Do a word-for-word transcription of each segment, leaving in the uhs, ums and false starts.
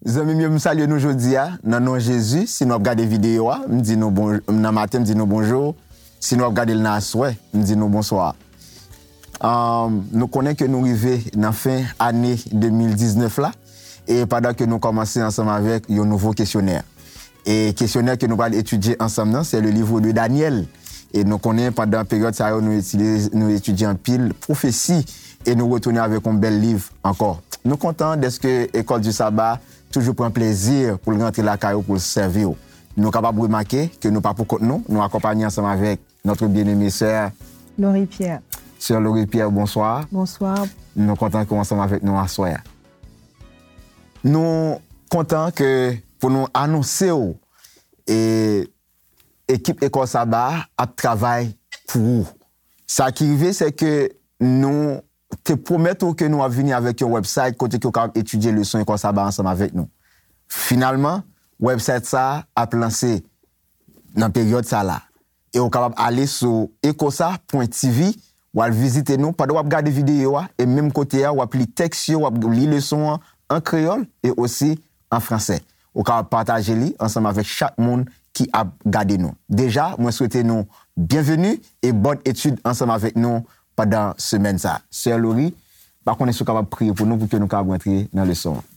Zanmi m yo, m salye nou jodi a, nan non Jezi. Si nou ap gade videyo a, m di nou bon, nan maten, m di nou bonjou. Si nou ap gade l nan aswè, m di nou bonswa. Ahn, nou konnen ke nou rive nan fen ane de mil diznèf la, e pandan ke nou kòmanse ansanm avèk yon nouvo kesyonè. E kesyonè ke nou pral etidye ansanm nan, se le livre de Daniel. E nou konnen pandan peryòd sa yo, nou etidye, nou etidye anpil pwofesi e nou retounen avèk yon bèl liv ankò. Nou kontan dèske École du Sabbat toujou pran plezi pou l rantre lakay ou, pou l sèvi w. Nou kapab remake ke nou pa pou kont nou, nou akonpanye ansanm avèk notre bien-aimée sè Laurie Pierre. Sè Laurie Pierre, bonswa. Bonswa. Nou kontan ke w ansanm avèk nou aswè a. Nou kontan ke pou nou anonse w, e, ekip École Sabbat ap travay pou ou. Sa ki rive, se ke nou te pwomèt ou ke nou ap vini avèk yon website kote ke w kapab etidye leson École Sabbat ansanm avèk nou. Finalman, website sa a ap lanse nan peryòd sa la. E w kapab ale sou ecosa pwen T V, w al vizite nou pandan w ap gade videyo a, e menm kote a, w ap li tèks yo, w ap li leson an an kreyòl e osi an fransè. Ou kapab pataje li ansanm avèk chak moun ki ap gade nou. Deja, mwen swete nou byenveni e bòn etid ansanm avèk nou pandan semèn sa. Sè Laurie, pa konnen si w kapab priye pou nou pou ke nou kapab rantre nan leson an.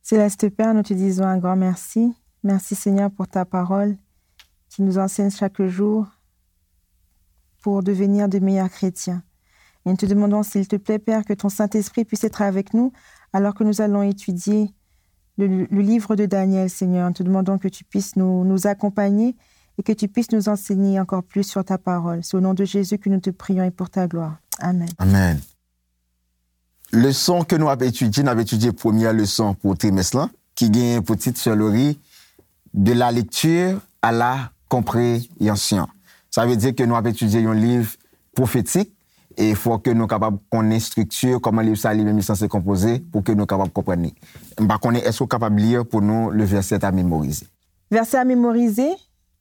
Céleste Père, nous te disons un grand merci. Merci Seigneur pour ta parole qui nous enseigne chaque jour pour devenir de meilleurs chrétiens. Et nous te demandons, s'il te plaît, Père, que ton Saint-Esprit puisse être avec nous alors que nous allons étudier le, le livre de Daniel, Seigneur. Nous te demandons que tu puisses nous, nous accompagner et que tu puisses nous enseigner encore plus sur ta parole. C'est au nom de Jésus que nous te prions et pour ta gloire. Amen. Amen. Leson ke nou ap etidye, n ap etidye premyè leson pou trimès lan, ki genyen pou tit, Sè Laurie, De la lecture à la compréhension. Sa vle di ke nou ap etidye yon liv pwofetik, e fò ke nou kapab konnen estrikti, kòman liv sa li menm li sanse konpoze, pou ke nou kapab konprann li. M pa konnen, èske w kapab li pou nou le verset à mémoriser? Verset à mémoriser,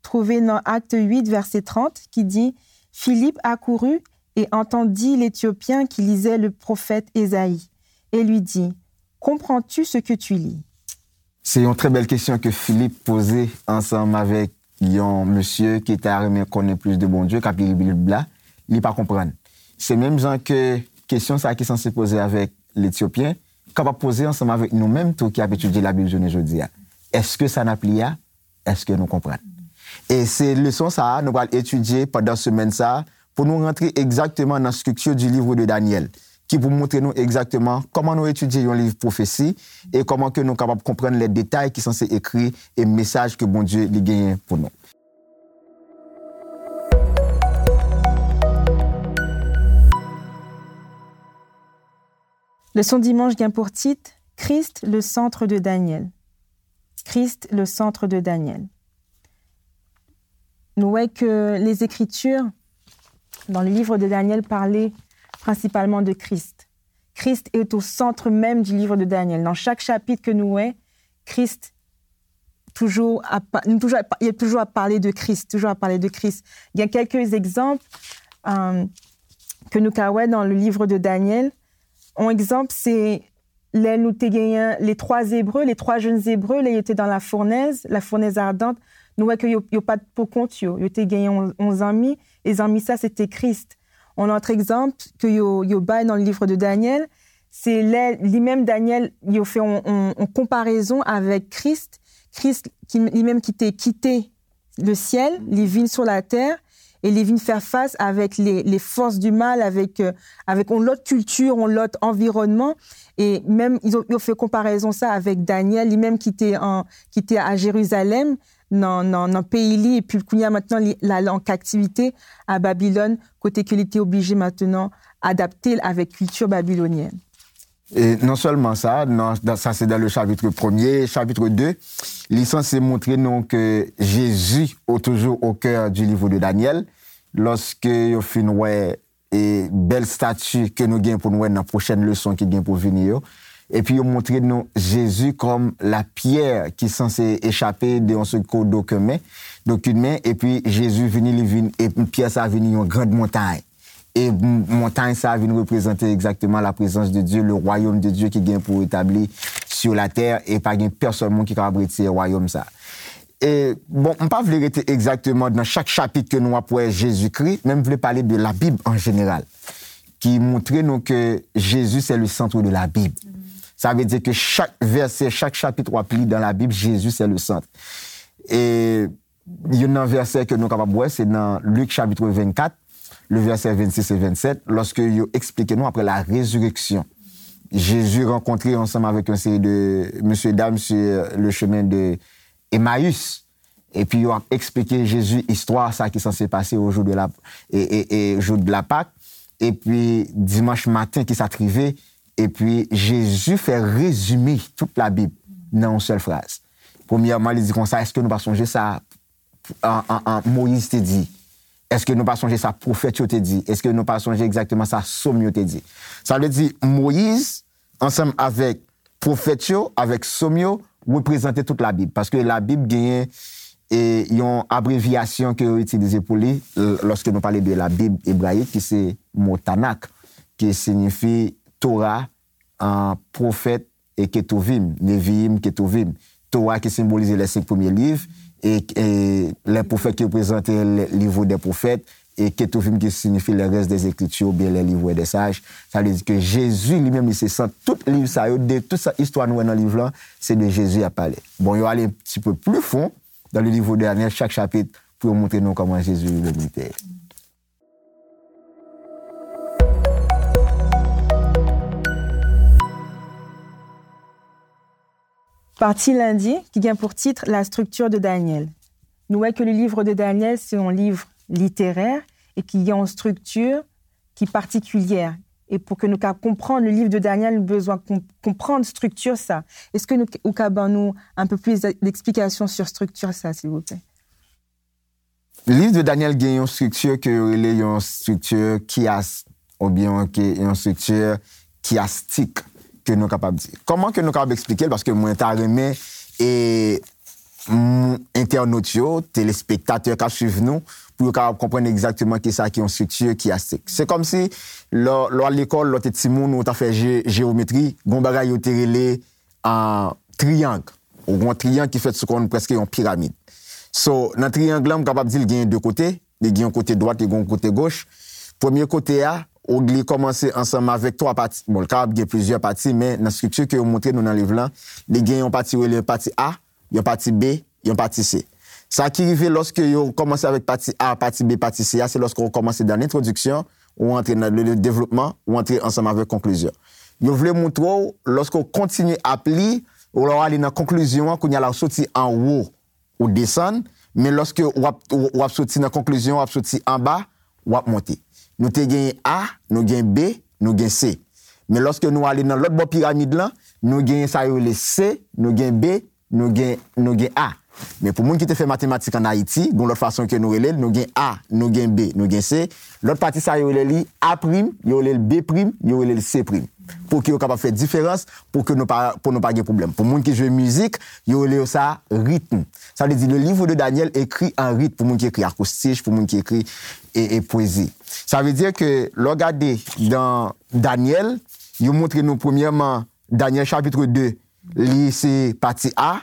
trouvé dans Actes huit, verset trente, qui dit, Philippe accourut et entendit l'Éthiopien qui lisait le prophète Ésaïe, et lui dit, Comprends-tu ce que tu lis? Se yon trè bèl kesyon ke Filip poze ansanm avèk yon mesye ki ta renmen konnen plis de Bondye, k ap li Bib la, li pa konprann. Se menm jan ke kesyon sa a ki sanse poze avèk Letyopyen, kapab poze ansanm avèk nou menm tou ki ap etidye Labib jounen jodi a. Èske sa n ap li a, èske nou konprann? E se leson sa a nou pral etidye pandan semèn sa a, pou nou rantre egzakteman nan estrikti du livre de Daniel, ki pou montre nou egzakteman kòman nou etidye yon liv pwofesi e kòman ke nou kapab konprann lè detay ki sanse ekri e mesaj ke Bondye li genyen pou nou. Leson dimanch gen pou tit, Christ, le centre de Daniel. Christ, le centre de Daniel. Nou wè ke les Écritures, dans le livre de Daniel, parlaient principalement de Christ. Christ est au centre même du livre de Daniel. Dans chaque chapitre ke nou wè, Christ toujou ap, nou toujou ap, il est toujours à parler de Christ, toujours à parler de Christ. Gen kèlke egzanp, euh, ke nou ka wè dans le livre de Daniel. Yon egzanp, se lè nou te genyen les trois Hébreux, les trois jeunes Hébreux, lè yo te dans la fournaise, la fournaise ardente, nou wè ke yo, yo pa t pou kont yo, yo te genyen yon, yon zanmi, e zanmi sa se te Kris. Yon lòt egzanp ke yo, yo bay dans le livre de Daniel, se lè li menm Daniel, yo fè yon, yon, yon konparezon avèk Kris, Kris ki, li menm ki te kite le ciel, li vin sur la terre, e li vin fè fas avèk les, les forces du mal, avèk, euh, avèk yon lòt kilti, yon lòt anviwònman, e menm yo, yo fè konparezon sa avèk Daniel, li menm ki te an, ki te a Jerizalèm, nan, nan, nan peyi li, epi kounye a mentnan, li, l ale an kaptivite a Babilòn, kote ke li te oblije mentnan adapte l avèk kilti babilonyèn. E non sèlman sa, nan, dan, sa se dans le chapitre premier, chapitre deux, li sanse montre nou ke Jezi est toujours au cœur du livre de Daniel. Lòske yo fin wè e bèl stati ke nou gen pou n wè nan pwochèn leson ki gen pou vini yo. Epi yo montre nou Jezi kòm la pyè ki sanse echape de yon sèl kou d'okèn men, d'okèn men, epi Jezi vini, li vin, e pyè sa vini yon grand montay. E m-, montay sa vin reprezante egzakteman la prezans de Dye, le royaume de Dieu ki gen pou etabli sur la terre, e pa gen pèsonn moun ki kapab retire wayòm sa. E, bon, m pa vle rete egzakteman nan chak chapit ke nou ap wè Jezikri, men m vle pale de Labib an jeneral, ki montre nou ke Jésus c'est le centre de la Bible. Sa vle di ke chak vèsè, chak chapit w ap li dan Labib, Jésus c'est le centre. E youn nan vèsè ke nou kapab wè, se nan Lik chapit vennkat, le vèsè vennsis e vennsèt, lòske yo eksplike nou apre la résurrection. Jezi rankontre ansanm avèk yon seri de mesye dam sur le chemin de Emmaüs. Epi yo ap eksplike Jezi istwa sa ki sanse pase o jou de la, e, e, e jou de la Pâque. Epi dimanch maten ki sa t rive. Epi Jezi fè rezime tout Labib nan yon sèl fraz. Premyèman, li di konsa, èske nou pa sonje sa an, an, an, Moyiz te di? Èske nou pa sonje sa pwofèt yo te di? Èske nou pa sonje egzakteman sa sòm yo te di? Sa vle di, Moyiz, ansanm avèk pwofèt yo, avèk sòm yo, reprezante tout Labib. Paske Labib genyen, e, yon abrevyasyon ke yo itilize pou li, l-, lòske nou pale de Labib ebrayik, ki se mo Tanak, ki siyifi Tora, an, pwofèt, e Ketuvim, Neviim, Ketuvim. Tora ki senbolize les cinq premiers livres, e, e les prophètes ki reprezante le livre des prophètes, e Ketuvim ki siyifi les restes des écritures oubyen les livres des sages. Sa vle di ke Jezi li menm li se sant tout liv sa yo, de tout sa istwa nou wè nan liv lan, se de Jezi y ap pale. Bon, yo ale un petit peu plus fond dans le livre de Daniel, chak chapit, pou yo montre nou kòman Jezi li menm li te ye. Pati lendi, ki gen pou tit La structure de Daniel. Nou wè ke le livre de Daniel, se yon liv literè e ki gen yon strikti ki patikilyè. E pou ke nou ka konprann le livre de Daniel, nou bezwen konprann strikti sa. Èske nou, ou ka ban nou un peu plus d'explication sur strikti sa, silvouplè? Liv de Daniel gen yon strikti ke yo rele yon strikti kiyas, oubyen yon, ke, yon strikti kiyastik, ke nou kapab di. Kòman ke nou kapab eksplike l? Paske mwen ta renmen, e, m, entènot yo, telespektatè k ap swiv nou, pou yo kapab konprann egzakteman kisa ki yon strikti kiyastik. Se kòmsi, lè, lè w al lekòl, lè w te timoun, ou ta fè je-, jewometri, gon bagay yo te rele, an, triyang. Ou gon triyang ki fèt sou kòm prèske yon piramid. So, nan triyang lan, m kapab di l gen de kote. Li gen yon kote dwat, li gen yon kote goch. Premye kote a, ou li kòmanse ansanm avèk twa pati. Bon, li kapab gen plizyè pati, men nan estrikti ke yo montre nou nan liv lan, li gen yon pati yo rele pati A, yon pati B, yon pati C. Sa ki rive lòske yo kòmanse avèk pati A, pati B, pati C a, se lòske w kòmanse dan lentwodiksyon, ou antre nan le, le devlopman, ou antre ansanm avèk konklizyon. Yo vle montre w, lòske w kontinye ap li, ou lè w ale nan konklizyon an, kounye a la w soti anwo, ou desann, men lòske w ap, w, w ap soti nan konklizyon, w ap soti anba, w ap monte. Nou te genyen A, nou gen B, nou gen C. Men lòske nou ale nan lòt bò piramid lan, nou genyen sa yo rele C, nou gen B, nou gen, nou gen A. Men pou moun ki te fè matematik ann Ayiti, gon lòt fason ke nou rele l, nou gen A, nou gen B, nou gen C. Lòt pati sa yo rele li A prim, yo rele l B prim, yo rele l C prim. Pou ke yo kapab fè diferans, pou ke nou pa, pou nou pa gen pwoblèm. Pou moun ki jwe mizik, yo rele yo sa ritm. Sa vle di, le livre de Daniel écrit en rythme, pou moun ki ekri akoustich, pou moun ki ekri e, e pwezi. Sa vle di ke lè w gade dan Daniel, yo montre nou premyèman Daniel chapitre de, li se pati A,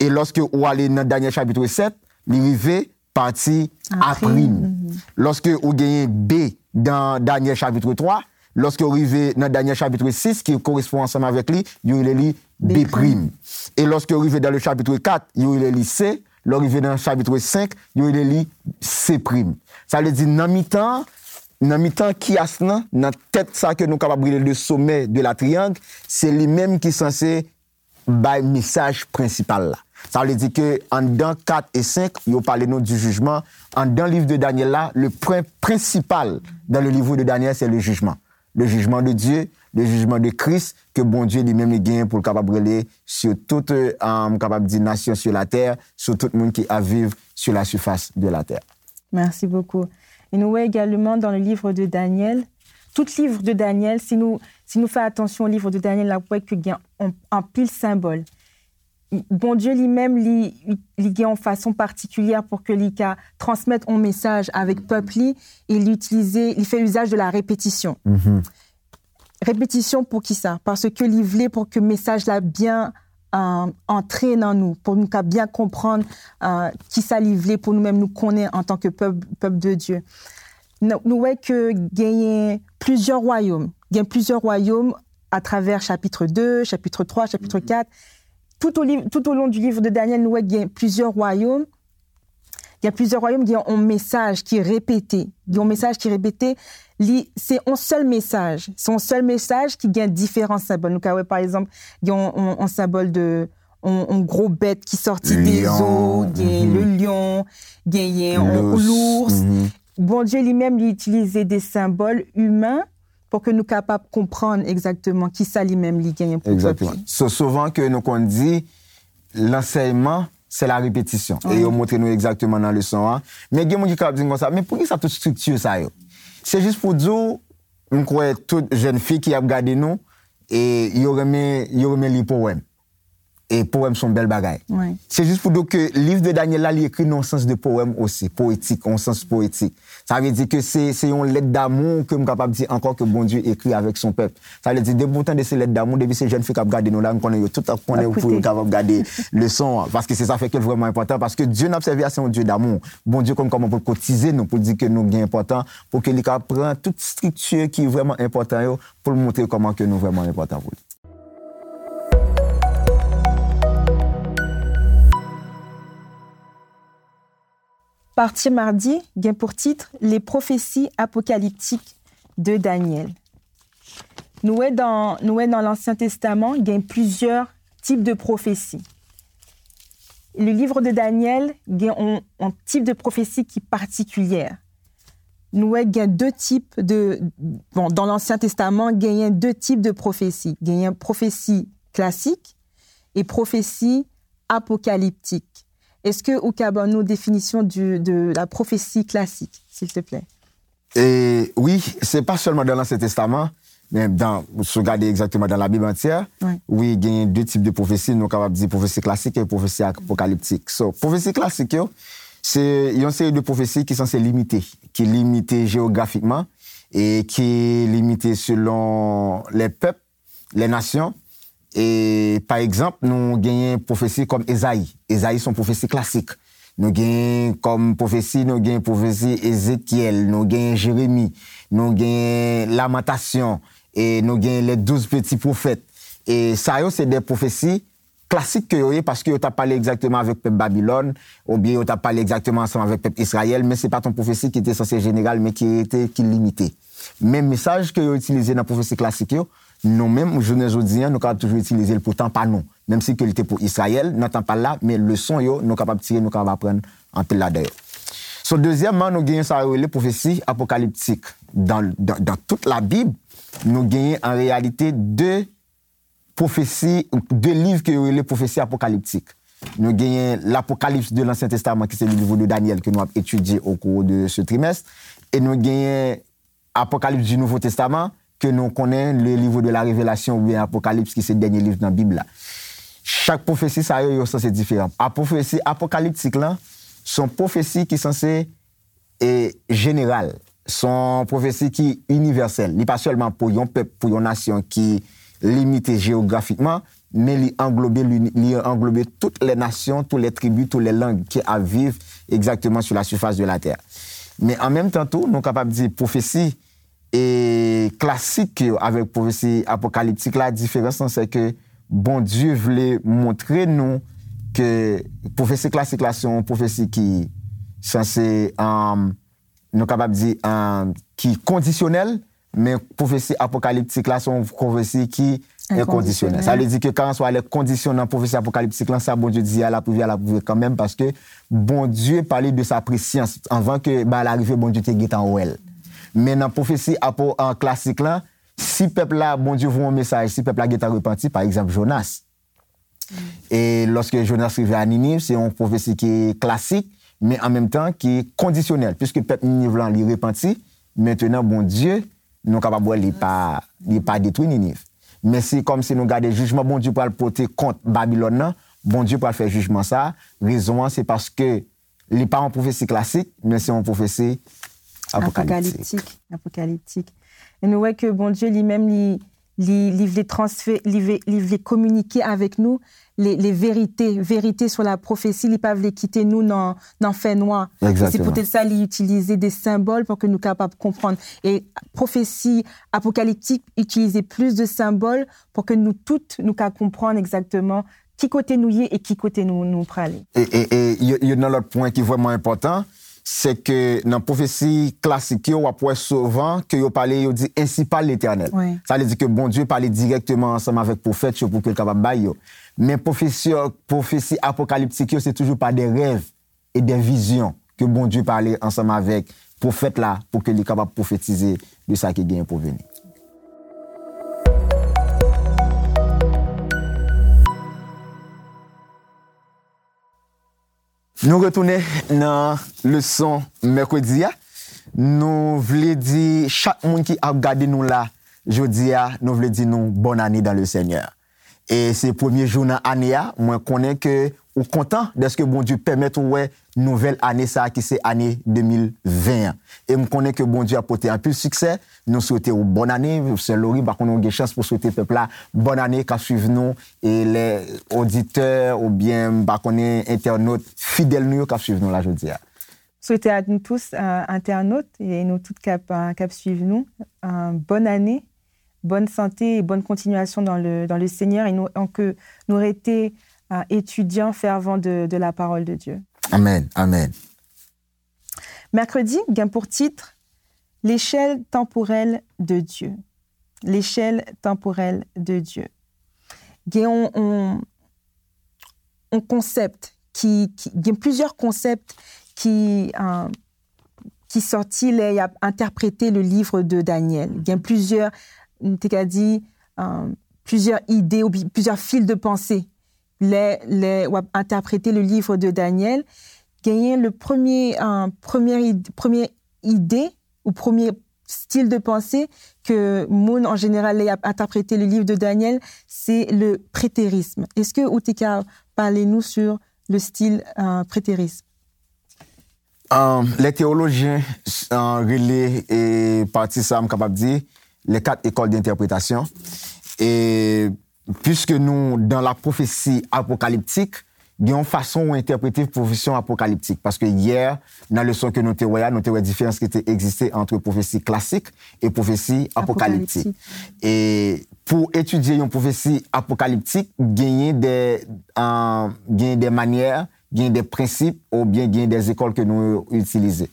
e lòske ou ale nan Daniel chapitre sèt, li rive pati A prim. Lòske ou genyen B dan Daniel chapitre twa, lòske ou rive nan Daniel chapitre sis ki korespon ansanm avèk li, yo rele li B prim. E lòske ou rive dan le chapitre kat, yo rele li C, lè ou rive nan chapitre senk, yo rele li C prim. Sa vle di nan mitan, nan mitan kiyas lan, nan tèt sa ke nou kapab rele le sommet de la triangle, se li menm ki sanse bay mesaj prensipal la. Sa vle di ke anndan kat e senk, yo pale nou du jugement. Anndan liv de Daniel la, le point principal dans le livre de Daniel, c'est le jugement. Le jugement de Dieu, le jugement de Christ, ke Bondye li menm li genyen pou l kapab rele sur tout, euh, m kapab di, nation sur la terre, sur tout moun ki ap viv sur la surface de la terre. Merci beaucoup. Et nous voyons également dans le livre de Daniel, tout livre de Daniel, si nou, si nou fè atansyon o liv de Daniel, n ap wè ke gen an, anpil senbòl. Bondye li menm, li, li gen yon fason patikilyè pou ke li ka transmèt yon mesaj avèk pèp li, e li itilize, li fè usage de la répétition. Repetisyon pou kisa? Paske li vle pou ke mesaj la byen euh, antre nan nou, pou nou ka byen konprann, euh, kisa li vle pou nou menm nou konnen antanke pèp, pèp de Dye. Nou, nou wè ke genyen plizyè wayòm. Gen plizyè wayòm atravè chapit de, chapit twa, chapit kat. Tout au liv-, tout au long du livre de Daniel, nou wè gen plizyè wayòm. Gen plizyè wayòm, gen yon mesaj ki repete. Gen yon mesaj ki repete, li, se yon sèl mesaj. Se yon sèl mesaj ki gen diferan senbòl. Nou ka wè, pa egzanp, gen yon, yon, yon senbòl de, yon, yon gwo bèt ki sòti de zo, gen le lion, genyen yon lours. Bondye li menm, li itilize de senbòl imen pou ke nou kapab konprann egzakteman kisa li menm li genyen pou pèp li. Egzakteman. So, souvan ke nou konn di, lansèyman, se la repetisyon. E yo montre nou egzakteman nan leson an. Men gen moun ki kapab di m konsa, men poukisa tout estrikti sa yo? Se jis pou di w, m kwè tout jèn fi ki ap gade nou, e yo renmen, yo renmen li powèm. E powèm se yon bèl bagay. Se jis pou di w ke liv de Daniel la, li ekri nan yon sans de powèm osi, poetik, yon sans poetik. Sa vle di ke se, se yon lèt damou ke m kapab di ankò ke Bondye ekri avèk son pèp. Sa vle di, depi w tande se lèt damou, depi se jèn fi k ap gade nou la, m konnen yo tout ap konnen pou yo kapab gade leson an. Paske se sa fè ke l vrèman enpòtan, paske Dye n ap sèvi a, se yon Dye damou. Bondye konn kòman pou l kotize nou, pou l di ke nou gen enpòtan, pou ke li ka pran tout estrikti ki vrèman enpòtan yo, pou l montre kòman ke nou vrèman enpòtan pou li. Pati madi gen pou tit Les prophéties apocalyptiques de Daniel. Nou wè dan, nou wè nan Lansyen Testaman, gen plizyè tip de pwofesi. Le livre de Daniel gen yon, yon tip de pwofesi ki patikilyè. Nou wè gen de tip de, bon, dan Lansyen Testaman, genyen de tip de pwofesi. Genyen pwofesi klasik e pwofesi apokaliptik. Èske ou ka ban nou definisyon du, de la prophétie classique, s'il te plaît? E wi, se pa sèlman dan Lansyen Testaman, men dan, si w gade egzakteman dan Labib antyè, wi, genyen de tip de pwofesi, nou kapab di pwofesi klasik e pwofesi apokaliptik. So, pwofesi klasik yo, se yon seri de pwofesi ki sanse limite, ki limite jewografikman e ki limite selon lè pèp, lè nasyon. E, pa egzanp, nou genyen pwofesi kòm Ezayi. Ezayi se yon pwofesi klasik. Nou genyen kòm pwofesi, nou genyen pwofesi Ezekyèl, nou genyen Jeremi, nou genyen Lamantasyon, e nou genyen les douze petits prophètes. E sa yo se de pwofesi klasik ke yo ye, paske yo t ap pale egzakteman avèk pèp Babilòn, oubyen yo t ap pale egzakteman ansanm avèk pèp Izrayèl, men se pa t yon pwofesi ki te sanse jeneral, men ki rete, ki limite. Men mesaj ke yo itilize nan pwofesi klasik yo, nou menm, jounen jodi a, nou kapab toujou itilize l pou tan pa nou, menm si ke li te pou Izrayèl, nan tan pa l la, men leson yo, nou kapab tire, nou kapab aprann anpil ladan yo. So, dezyèmman, nou genyen sa yo rele pwofesi apokaliptik. Dan, dan, dan tout Labib, nou genyen an reyalite de pwofesi, de liv ke yo rele pwofesi apokaliptik. Nou genyen L'Apocalypse de l'Ancien Testament, ki se le livre de Daniel ke nou ap etidye au cours de ce trimestre, e nou genyen Apocalypse du Nouveau Testament, ke nou konnen le livre de la Révélation oubyen Apokalips, ki se dènye liv nan Bib la. Chak pwofesi sa yo, yo sanse diferan. A pwofesi apokaliptik lan, se yon pwofesi ki sanse e jeneral. Se yon pwofesi ki inivèsèl. Li pa sèlman pou yon pèp, pou yon nasyon ki limite jewografikman, men li anglobe, li, li anglobe tout lè nasyon, tout lè tribi, tout lè lang ki ap viv egzakteman sur la surface de la terre. Men an menm tan tou, nou kapab di pwofesi e klasik yo avèk pwofesi apokaliptik la, diferans lan se ke Bondye vle montre nou ke pwofesi klasik la se yon pwofesi ki sanse, um, nou kapab di, um, ki kondisyonèl, men pwofesi apokaliptik la se yon pwofesi ki enkondisyonèl. Enkondisyonèl. Sa vle di ke kalanswa lè kondisyon nan pwofesi apokaliptik lan, sa Bondye di a, l ap rive a, l ap rive kanmenm, paske Bondye pale de sa presyans. Anvan ke bagay la rive, Bondye te gentan wè l. Men nan pwofesi apo-, an klasik lan, si pèp la, Bondye voye yon mesaj, si pèp la gentan repanti, pa egzanp, Jonas. E lòske Jonas rive a Niniv, se yon pwofesi ki klasik, men an menm tan ki kondisyonèl, piske pèp Niniv lan, li repanti, mentenan Bondye, nou kapab wè li pa, li pa detwi Niniv. Men se kòmsi nou gade jijman Bondye pral pote kont Babilòn nan, Bondye pral fè jijman sa, rezon an se paske li pa yon pwofesi klasik, men se yon pwofesi apokaliptik. Apokaliptik, apokaliptik. E nou wè ke Bondye li menm, li, Li, li vle transfè, li vle, li vle kominike avèk nou les, les vérités, vérité sur la prophétie, li pa vle kite nou nan, nan fènwa. E se poutèt sa li itilize de senbòl pou ke nou kapab konprann. E pwofesi apokaliptik itilize plis de senbòl pou ke nou tout, nou ka konprann egzakteman ki kote nou ye e ki kote nou, nou prale. E, e, e yo, yo nan lòt pwen ki vrèman enpòtan, se ke nan pwofesi klasik yo, w ap wè souvan ke yo pale, yo di, ainsi parle l'Éternel. Wi. Sa vle di ke Bondye pale dirèkteman ansanm avèk pwofèt yo pou ke l kapab bay yo. Men pwofesi, pwofesi apokaliptik yo, se toujou pa de rèv e de vizyon ke Bondye pale ansanm avèk pwofèt la pou ke li kapab pwofetize de sa ki genyen pou vini. Nou retounen nan leson mèkredi a. Nou vle di chak moun ki ap gade nou la jodi a, nou vle di nou bòn ane dans le Seigneur. E se premye jou nan ane a, mwen konnen ke ou kontan dèske Bondye pèmèt ou wè nouvèl ane sa a ki se ane de mil ven an. E m konnen ke Bondye ap pote anpil siksè. Nou swete w bòn ane. Sè Lori, m pa konnen w gen chans pou swete pèp la bòn ane k ap swiv nou, e lè oditè oubyen, m pa konnen, entènot fidèl nou yo k ap swiv nou la jodi a. Swete a nou tous, euh, entènot, e nou tout k ap, euh, k ap swiv nou, euh, bòn ane, bòn sante e bòn kontinyasyon dans le, dans le Seigneur, e nou, ke nou rete, euh, etidyan fèvan de, de la parole de Dieu. Amèn, amèn. Mèkredi gen pou tit L'échelle temporelle de Dieu. L'échelle temporelle de Dieu. Gen yon, yon, yon konsèp ki, ki, gen plizyè konsèp ki, euh, ki sòti lè y ap entèprete le livre de Daniel. Gen plizyè, m te ka di, euh, plizyè ide ou bi-, plizyè fil de panse. Lè, lè w ap entèprete le livre de Daniel, genyen le premye, euh, premye id-, premye ide ou premye stil de panse ke moun an jeneral lè y ap entèprete le livre de Daniel, se le prétérisme. Èske ou te ka pale nou sur le style, euh, prétérisme? Euh, lè teyolojyen, euh, rele, e pati sa, m kapab di, les quatre écoles d'interprétation. E piske nou dans la prophétie apocalyptique, gen yon fason ou entèprete pwofesi apokaliptik. Paske yè, nan leson ke nou te wè a, nou te wè diferans ki te egziste ant pwofesi klasik e pwofesi apokaliptik. Apokaliptik. E pou etidye yon pwofesi apokaliptik, genyen de, euh, genyen de manyè, genyen de prensip, oubyen genyen de ekòl ke nou itilize.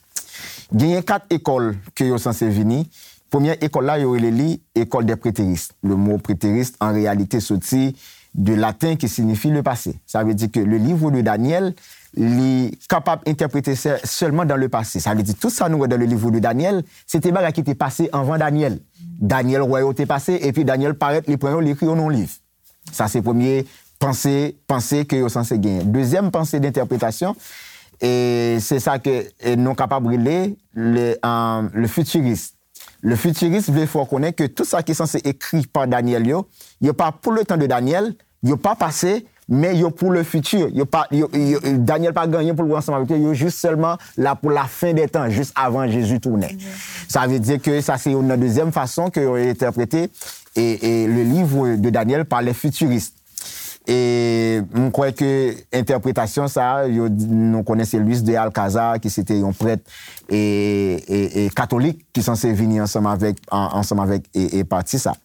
Genyen kat ekòl ke yo sanse vini. Premyè ekòl la, yo rele li école des prétéristes. Le mot prétériste, en réalité, soti de laten ki signifi le passé. Sa vle di ke le livre de Daniel, li kapab entèprete sè-, sèlman dans le passé. Sa vle di tout sa nou wè dans le livre de Daniel, se te bagay ki te pase anvan Daniel. Daniel wè yo te pase, epi Daniel parèt, li pran yo, li ekri yo nan yon liv. Sa se premye panse, panse ke yo sanse genyen. Dezyèm panse d'entèpretasyon, e se sa ke, e nou kapab rele le, euh, le futuriste. Le futuriste vle fè w konnen ke tout sa ki sanse ekri pa Daniel yo, yo pa pou le tan de Daniel, yo pa pase, men yo pou le futur. Yo pa, yo, yo, Daniel pa gen anyen pou l wè ansanm avèk yo, yo jis sèlman la pou la fin des temps, jis avan Jezi tounen. Sa vle di ke sa se youn nan dezyèm fason ke yo entèprete e, e le livre de Daniel par les futuristes. E m kwè ke entèpretasyon sa a, yo, nou konnen se Luis de Alcázar, ki se te yon prèt e, e, e katolik, ki sanse vini ansanm avèk, an-, ansanm avèk e, e pati sa.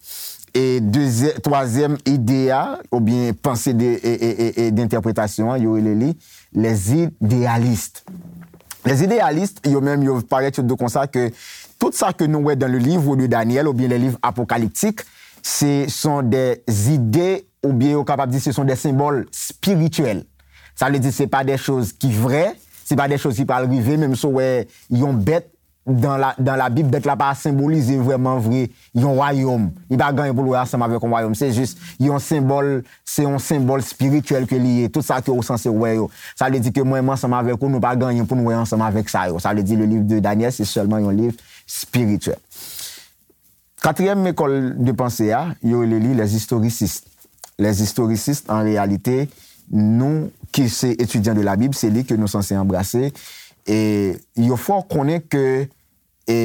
E dezyè-, twazyèm ide a, oubyen panse de, e, e, e, e d'entèpretasyon an, yo rele li les idéalistes. Les idéalistes, yo menm, yo parèt, yo di konsa ke tout sa ke nou wè dans le livre de Daniel oubyen les livres apocalyptiques, ce sont des idées, oubyen yo kapab di ce sont des symboles spirituels. Sa vle di se pa de choz ki vrè, se pa de choz ki pral rive, menm si w wè yon bèt dans la, dans la Bible, bèt la pa senbolize vrèman vre yon wayòm. Li pa gen anyen pou l wè ansanm avèk yon wayòm. Se jis yon senbòl, se yon senbòl espirityèl ke li ye. Tout sa ke ou sanse wè yo. Sa vle di ke mwen, mwen ansanm avèk ou, nou pa gen anyen pou nou wè ansanm avèk sa yo. Sa vle di le livre de Daniel, se sèlman yon liv espirityèl. Katriyèm ekòl de panse a, yo rele li les historicistes. Les historicistes, an reyalite, nou ki se etidyan de la Bib, se li ke nou sanse anbrase. E yo fè w konnen ke, e,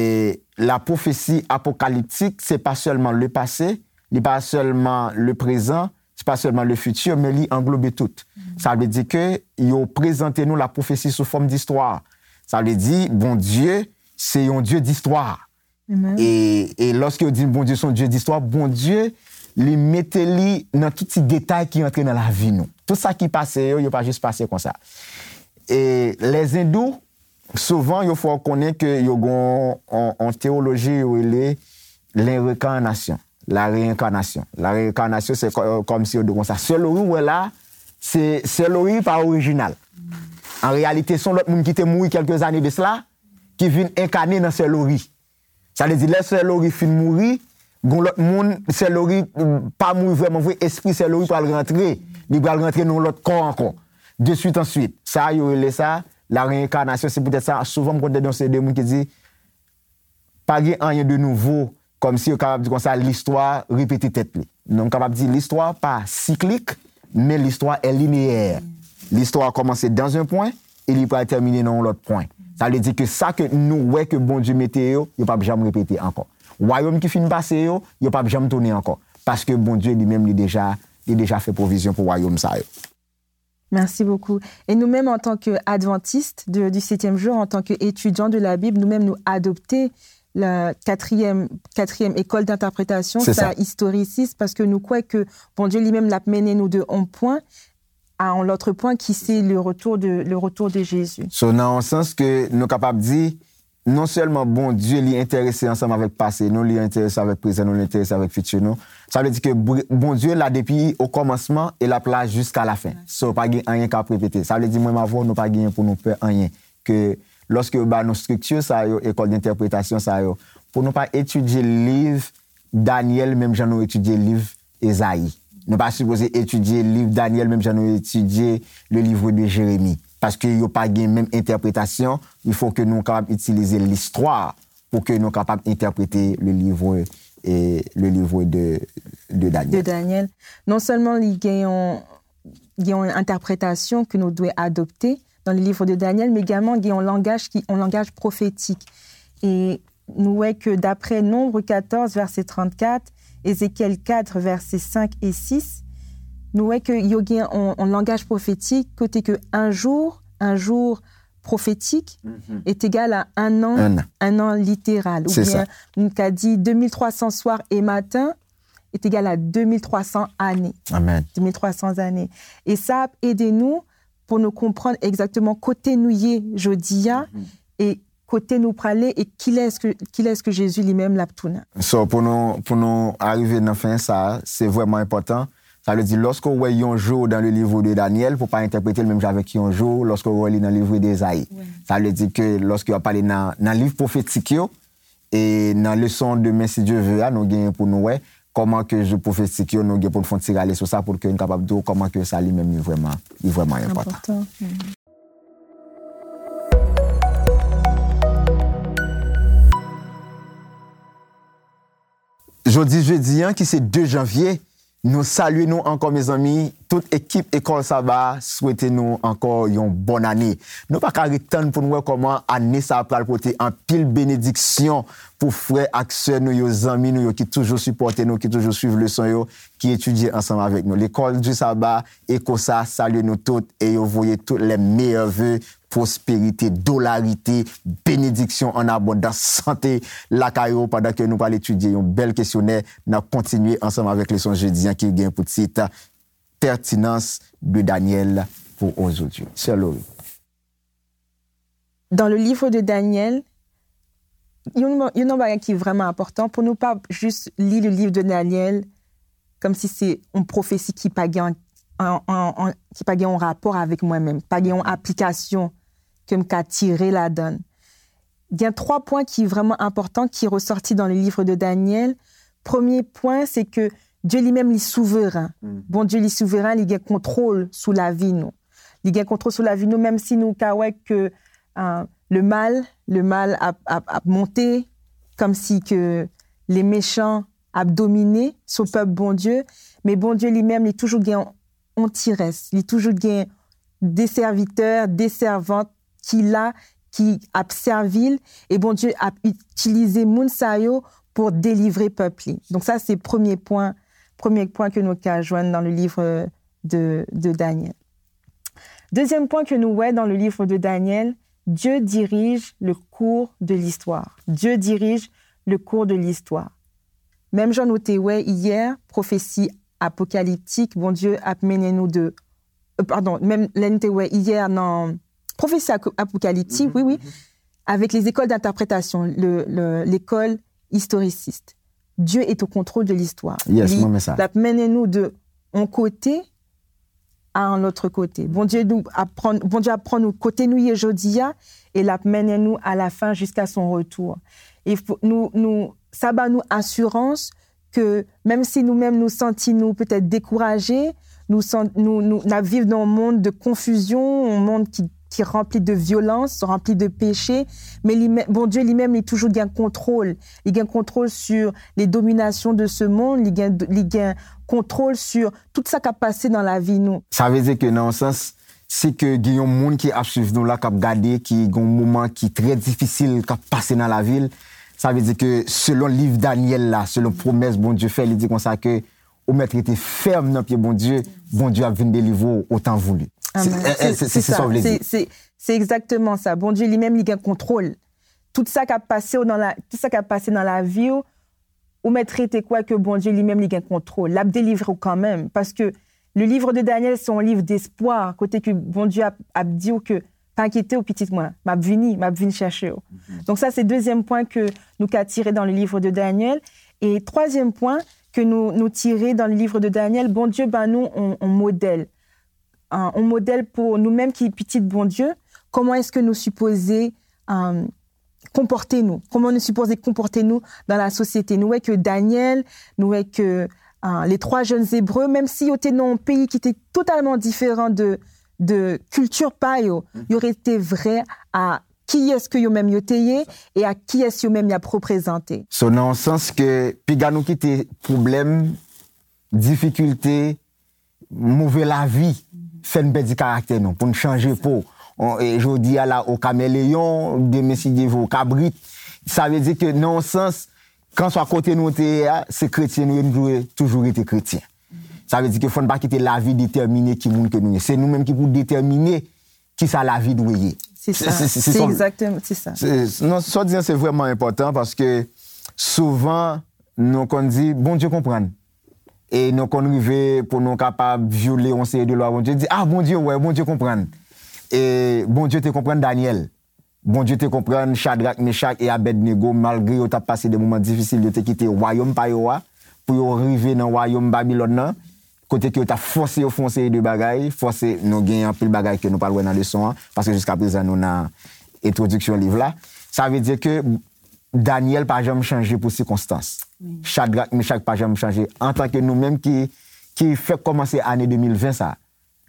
la prophétie apocalyptique, se pa sèlman le passé, Li pa sèlman le prezan, se pa sèlman le fitir, men li anglobe tout. Sa vle di ke yo prezante nou la pwofesi sou fòm distwa. Sa vle di, Bondye, se yon Dye distwa. E, e lòske yo di Bondye se yon Dye distwa, Bondye, li mete li nan tout ti detay ki antre nan lavi nou. Tout sa ki pase yo, yo pa jis pase konsa. E lèzendou, souvan, yo fè w konnen ke yo gen yon, yon teyoloji yo rele lenrekanasyon, la réincarnation. La réincarnation, se kò- kòmsi yo di konsa. Sè Lori, ou wè la, se, Sè Lori pa orijinal. An reyalite, se yon lòt moun ki te mouri kèlke zane de sela, ki vin enkane nan Sè Lori. Sa vle di, lè Sè Lori fin mouri, gon lòt moun, Sè Lori, mm, pa mouri vrèman vre, espri Sè Lori pral rantre. Li pral rantre nan yon lòt kò ankò. De suite en suite. Sa, yo rele sa la réincarnation. Se poutèt sa, souvan, m konn tande yon seri de moun ki di, pa gen anyen de nouvo, kòmsi yo kapab di konsa, listwa repete tèt li. Non, m kapab di, listwa pa siklik, men listwa è lineyè. Listwa kòmanse dans un point, e li pral tèmine nan yon lòt pwen. Sa vle di ke sa ke nou wè ke Bondye mete yo, yo p ap janm repete ankò. Wayòm ki fin pase yo, yo p ap janm tounen ankò. Paske Bondye li menm, li deja, li deja fè pwovizyon pou wayòm sa yo. Merci beaucoup. Et nous-mêmes, en tant qu'adventistes de- du septième jour, en tant qu'étudiants de la Bible, nous-mêmes, nous adopter la quatrième, quatrième école d'interprétation, C'est sa ça. Historiciste, parce que nous croyons que Bondye li menm l ap mennen nou de un point à un autre point, qui c'est le retour de, le retour de Jésus. So, nan yon sans ke nou kapab di, non sèlman Bondye li enterese ansanm avèk pase nou, li enterese avèk prezan nou, li enterese avèk fiti nou. Sa vle di ke Br- Bondye la depi o kòmansman e l ap la jiska lafen. So, pa gen anyen k ap repete. Sa vle di mwen m avè w, nou pa genyen pou nou pè anyen. Ke lòske yo ba nou estrikti sa yo, école d'interprétation sa yo, pou nou pa etidye liv Danyèl menm jan nou etidye liv Ezayi. Nou pa sipoze etidye liv Danyèl menm jan nou etidye le livre de Jérémie. Paske yo pa gen menm entèpretasyon, il faut que nou kapab itilize listwa pou ke nou kapab entèprete le livre, e, le livre de, de De Danyèl. Daniel. Non sèlman li gen yon, gen yon entèpretasyon ke nou dwe adopte dans le livre de Daniel, men egalman gen yon langaj ki, yon langaj pwofetik. E nou wè ke daprè Nonb katòz, vèsè trannkat, Ezekyèl kat, vèsè senk e sis, nou wè ke yo gen yon, yon langaj pwofetik kote ke un jour, un jour prophétique est égal à un an, Un an. Un an littéral. Ou C'est bien, ça. nou ka di deux mille trois cents soirs et matins est égal à deux mille trois cents années. Amen. Deux mille trois cents années. E sa ap ede nou pou nou konprann egzakteman kote nou ye jodi a e kote nou prale e kilès ke, kilès ke Jezi li menm l ap tounen. So, pou nou, pou nou arive nan fen sa, se vrèman enpòtan. Sa vle di, lòske w wè yon jou dans le livre de Daniel, pou pa entèprete l menm jan avèk yon jou, lòske w wè li nan livre de Ezayi. Sa vle di ke lòske w ap pale nan, nan liv pwofetik yo, e nan leson demen, si Dye ve a, nou genyen pou nou wè kòman ke jou pwofetik yo, nou gen pou n fè yon ti rale sou sa, pou ke n kapab di w kòman ke sa li menm li vrèman, li vrèman enpòtan. Enpòtan. Jodi jedi an, ki se de janvye, nou salye nou ankò, mezanmi. Tout ekip Ekòl Saba a swete nou ankò yon bòn ane. Nou pa ka ret tann pou n wè kòman ane sa a pral pote anpil benediksyon pou frè ak sè nou yo, zanmi nou yo ki toujou sipòte nou, ki toujou swiv leson yo, ki etidye ansanm avèk nou. Lekòl di Saba, Echo sa, salye nou tout e yo voye tout les meilleurs vœux, pwosperite, dolarite, benediksyon an abondans, sante lakay ou pandan ke nou pral etidye yon bèl kesyonè. N ap kontinye ansanm avèk leson jedi an ki gen pou tit Pertinence de Daniel pour aujourd'hui. Sè Lori. Dans le livre de Daniel, yon, yon bagay ki vrèman enpòtan pou nou pa jis li le livre de Daniel kòmsi se yon pwofesi ki pa gen an, an, an, ki pa gen yon rapò avèk mwen menm, pa gen yon aplikasyon ke m ka tire ladan l. Gen twa pwen ki vrèman enpòtan ki resòti dans le livre de Daniel. Premye pwen, se ke Dye li menm li souveren. Bondye li souveren, li gen kontwòl sou lavi nou. Li gen kontwòl sou lavi nou, menm si nou ka wè ke, euh, le mal, le mal ap, ap, ap monte, kòmsi ke les méchants ap domine sou pèp Bondye, men Bondye li menm, li toujou gen yon ti rès, li toujou gen de sèvitè, de sèvant ki la, ki ap sèvi l, e Bondye ap itilize moun sa yo pou delivre pèp li. Donk sa se premye pwen Premye pwen ke nou ka jwenn dans le livre de, de Daniel. Deuxième point que nous voyons dans le livre de Daniel, Dieu dirige le cours de l'histoire. Dieu dirige le cours de l'histoire. Menm jan nou te wè yè, pwofesi apokaliptik, Bondye ap mennen nou de, euh, pardon, menm lè nou te wè yè nan pwofesi apokaliptik, wi, wi, avec les écoles d'interprétation, le, le, l'école historiciste. Dieu est au contrôle de l'histoire. Yes, mwen men sa. L ap mennen nou de yon kote a yon lòt kote. Bondye nou aprann, Bondye aprann nou kote nou ye jodi a, e l ap mennen nou a la fin jiska son retour. E nou, nou, sa ba nou asirans ke menm si nou menm nou santi nou petèt dekouraje, nou, nou, nou, n ap viv nan yon mond de konfizyon, yon mond ki, ki ranpli de vyolans, ranpli de peche, men li, Bondye li menm, li toujou gen kontwòl. Li gen kontwòl sur les dominations de ce monde, li gen, li gen kontwòl sur tout sa k ap pase nan lavi nou. Sa vle di ke nan yon sans, si ke gen yon moun ki ap swiv nou la, k ap gade, ki gen yon moman ki trè difisil k ap pase nan lavi l, sa vle di ke selon liv Danyèl la, selon pwomès Bondye fè, li di konsa ke ou mèt rete fèm nan pye Bondye, Bondye ap vin delivre w otan voulu. Se sa w vle di. Se egzakteman sa. Bondye li menm li gen kontwòl. Tout sa k ap pase w nan la, tout sa k ap pase nan lavi w, ou mèt rete kwè ke Bondye li menm li gen kontwòl. L ap delivre w kanmenm. Paske le livre de Daniel se yon liv despwa, kote ke Bondye ap, ap di w ke pa enkyete w pitit mwen, m ap vini, m ap vin chèche w. Donk sa se dezyèm pwen ke nou ka tire dans le livre de Daniel. E twazyèm pwen ke nou, nou tire dans le livre de Daniel, Bondye ba nou yon, yon modèl. Yon modèl pou nou menm ki pitit Bondye, kòman èske nou sipoze konpòte nou, kòman nou sipoze konpòte nou dans la société. Nou wè ke Danyèl, nou wè ke les trois jeunes Hébreux, menm si yo te nan yon peyi ki te totalman diferan de, de kilti pa yo, yo rete vrè a kiyès ke yo menm yo te ye e a kiyès yo menm y ap reprezante. So nan yon sans ke piga nou kite pwoblèm, difikilte, move lavi fè n pèdi karaktè nou, pou n chanje po. Jodi a la o kameleyon, demen si Dye vle o kabrit. Sa vle di ke nan yon sans, kanswa kote nou te ye a, se kretyen nou ye, nou dwe toujou rete kretyen. Sa vle di ke fò n pa kite lavi detèmine ki moun ke nou ye. Se nou menm ki pou detèmine kisa lavi dwe ye. Se sa. Se egzakteman, se sa. Non, sa w di an se vrèman enpòtan paske souvan nou konn di Bondye konprann. E nou konn rive pou nou kapab vyole yon seri de lwa Bondye, di, ah, Bondye wè, Bondye konprann. E Bondye te konprann Danyèl. Bondye te konprann Chadrak, Mechak e Abèdnego, malgre yo t ap pase de moman difisil, yo te kite wayòm pa yo a pou yo rive nan wayòm Babilòn nan, kote ke yo t ap fòse yo fè yon seri de bagay, fòse, nou gen anpil bagay ke nou pral wè nan leson an, paske jiskaprezan nou nan entwodiksyon liv la. Sa vle di ke Danyèl pa janm chanje pou sikonstans. Chadrak, Mechak pa janm chanje. Antanke nou menm ki, ki fèk kòmanse ane de mil ven sa,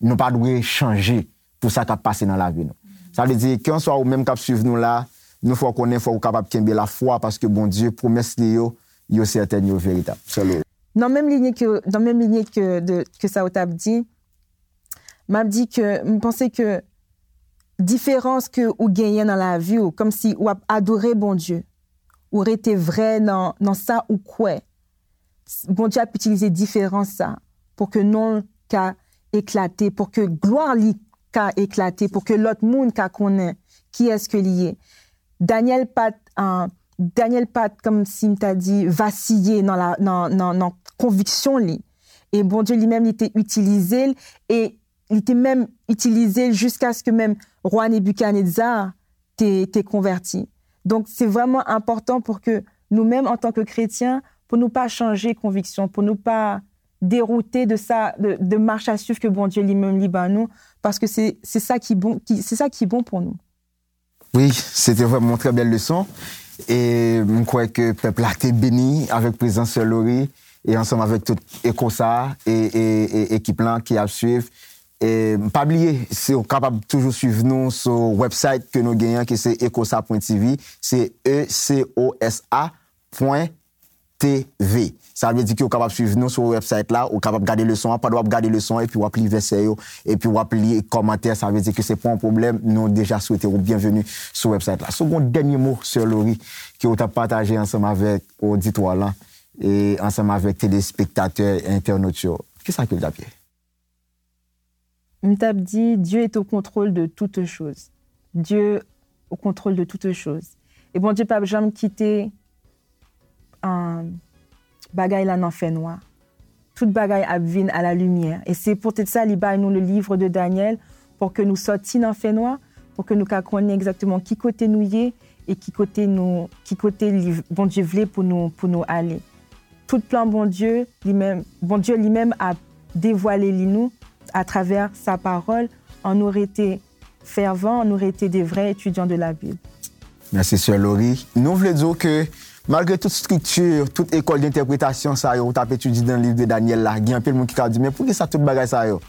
nou pa dwe chanje pou sa k ap pase nan lavi nou. Sa vle di, kèlkanswa ou menm k ap swiv nou la, nou fè w konnen fò ou kapab kenbe lafwa paske Bondye, pwomès li yo, yo sètèn, yo veritab. Sè Lori. Nan menm linye ke, nan menm linye ke, de, ke sa ou t ap di, m ap di ke, m panse ke diferans ke ou genyen nan lavi w, kòmsi w ap adore Bondye, ou rete vrè nan, nan sa ou kwè. Bondye ap itilize diferans sa pou ke non l ka eklate, pou ke glwa li ka eklate, pou ke lòt moun ka konnen kiyès ke li ye. Danyèl pa t, Danyèl pa t, kòmsi m ta di, vasiye nan, la, nan, nan, nan konviksyon li. E Bondye li menm, li te itilize l, e li te menm itilize l jiskaske menm wa Nebikadneza te, te konvèti. Donk, se vrèman enpòtan pou ke nou menm, antanke kretyen, pou nou pa chanje konviksyon, pou nou pa deroute de sa, de, de mach a swiv ke Bondye li menm li ban nou, paske se, se sa ki bon, ki, se sa ki bon pou nou. Wi, se te vrèman yon trè bèl leson. E m kwè ke pèp la te beni avèk prezans Sè Lori e ansanm avèk tout Ecosa e, e, e ekip lan ki ap swiv. E pa bliye, si w kapab toujou swiv nou sou website ke nou genyen, ki se ecosa pwen tv, se E C O S A pwen T V. Sa vle di ke w kapab swiv nou sou website la, ou kapab gade leson an, pandan w ap gade leson an, epi w ap li vèsè yo, epi w ap li kòmantè, sa vle di ke se pa yon pwoblèm, nou deja swete w byenveni sou website la. Si w gen yon dènye mo, Sè Lori, ke w t ap pataje ansanm avèk oditwa lan, e ansanm avèk telespektatè, entènot yo, kisa ke w t ap ye? M t ap di, Dieu est au contrôle de toutes choses. Dieu au contrôle de toutes choses. E Bondye p ap janm kite bagay la nan fènwa. Tout bagay ap vin a la limyè. E se poutèt sa li bay nou le livre de Daniel, pou ke nou sòti nan fènwa, pou ke nou ka konnen egzakteman ki kote nou ye e ki kote nou, ki kote li, Bondye vle pou nou, pou nou ale. Tout plan Bondye, li menm, Bondye li menm ap devwale li nou atravè sa pawòl, an nou rete fèvan, an nou rete de vrè etidyan de la Bib. Mèsi, Sè Lori. Nou vle di w ke malgre tout estrikti, tout ekòl de entèpretasyon sa yo ou t ap etidye nan liv de Danyèl la, gen anpil moun ki ka di, men poukisa tout bagay sa yo?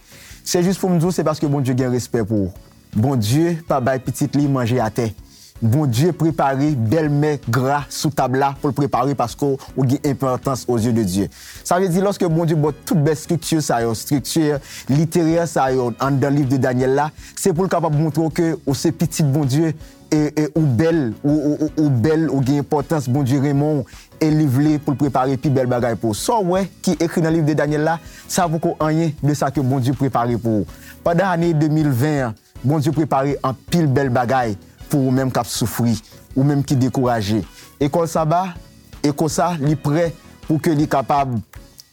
Se jis pou m di w, se paske Bondye gen respè pou ou. Bondye pa bay pitit li manje atè. Bondye prepare bèl mè gra sou tab la pou l prepare paske w gen enpòtans aux yeux de Dieu. Sa vle di, lòske Bondye ba w tout bèl estrikti sa yo, estrikti literè sa yo anndan liv de Danyèl la, se pou l kapab montre w ke ou se pitit Bondye, e, e ou bèl, ou, ou, ou, ou bèl, ou gen enpòtans, Bondye renmen w, e li vle pou l prepare pi bèl bagay pou ou. Sa w wè ki ekri nan liv de Danyèl la, sa poko anyen de sa ke Bondye prepare pou ou. Pandan ane de mil ven an, Bondye prepare anpil bèl bagay pou ou menm k ap soufri, ou menm ki dekouraje. Ekòl Saba, e konsa, li prè pou ke li kapab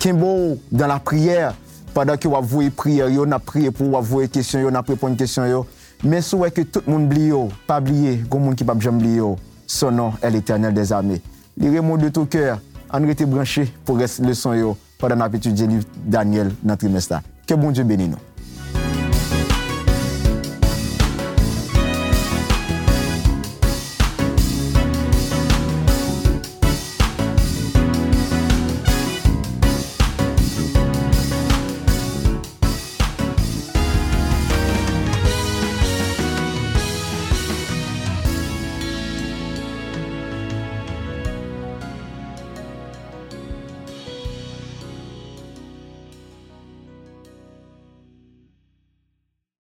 kenbe w dans la prière, pandan ke w ap voye priyè yo, n ap priye pou ou, w ap voye kesyon yo, n ap reponn kesyon yo. Men si w wè ke tout moun bliye w, pa bliye, gon moun ki p ap janm bliye w. Son nom est l'Éternel des armées. Li renmen w de tout cœur. Ann rete branche pou rès leson yo pandan n ap etidye liv Danyèl nan trimès la. Ke Bondye beni nou.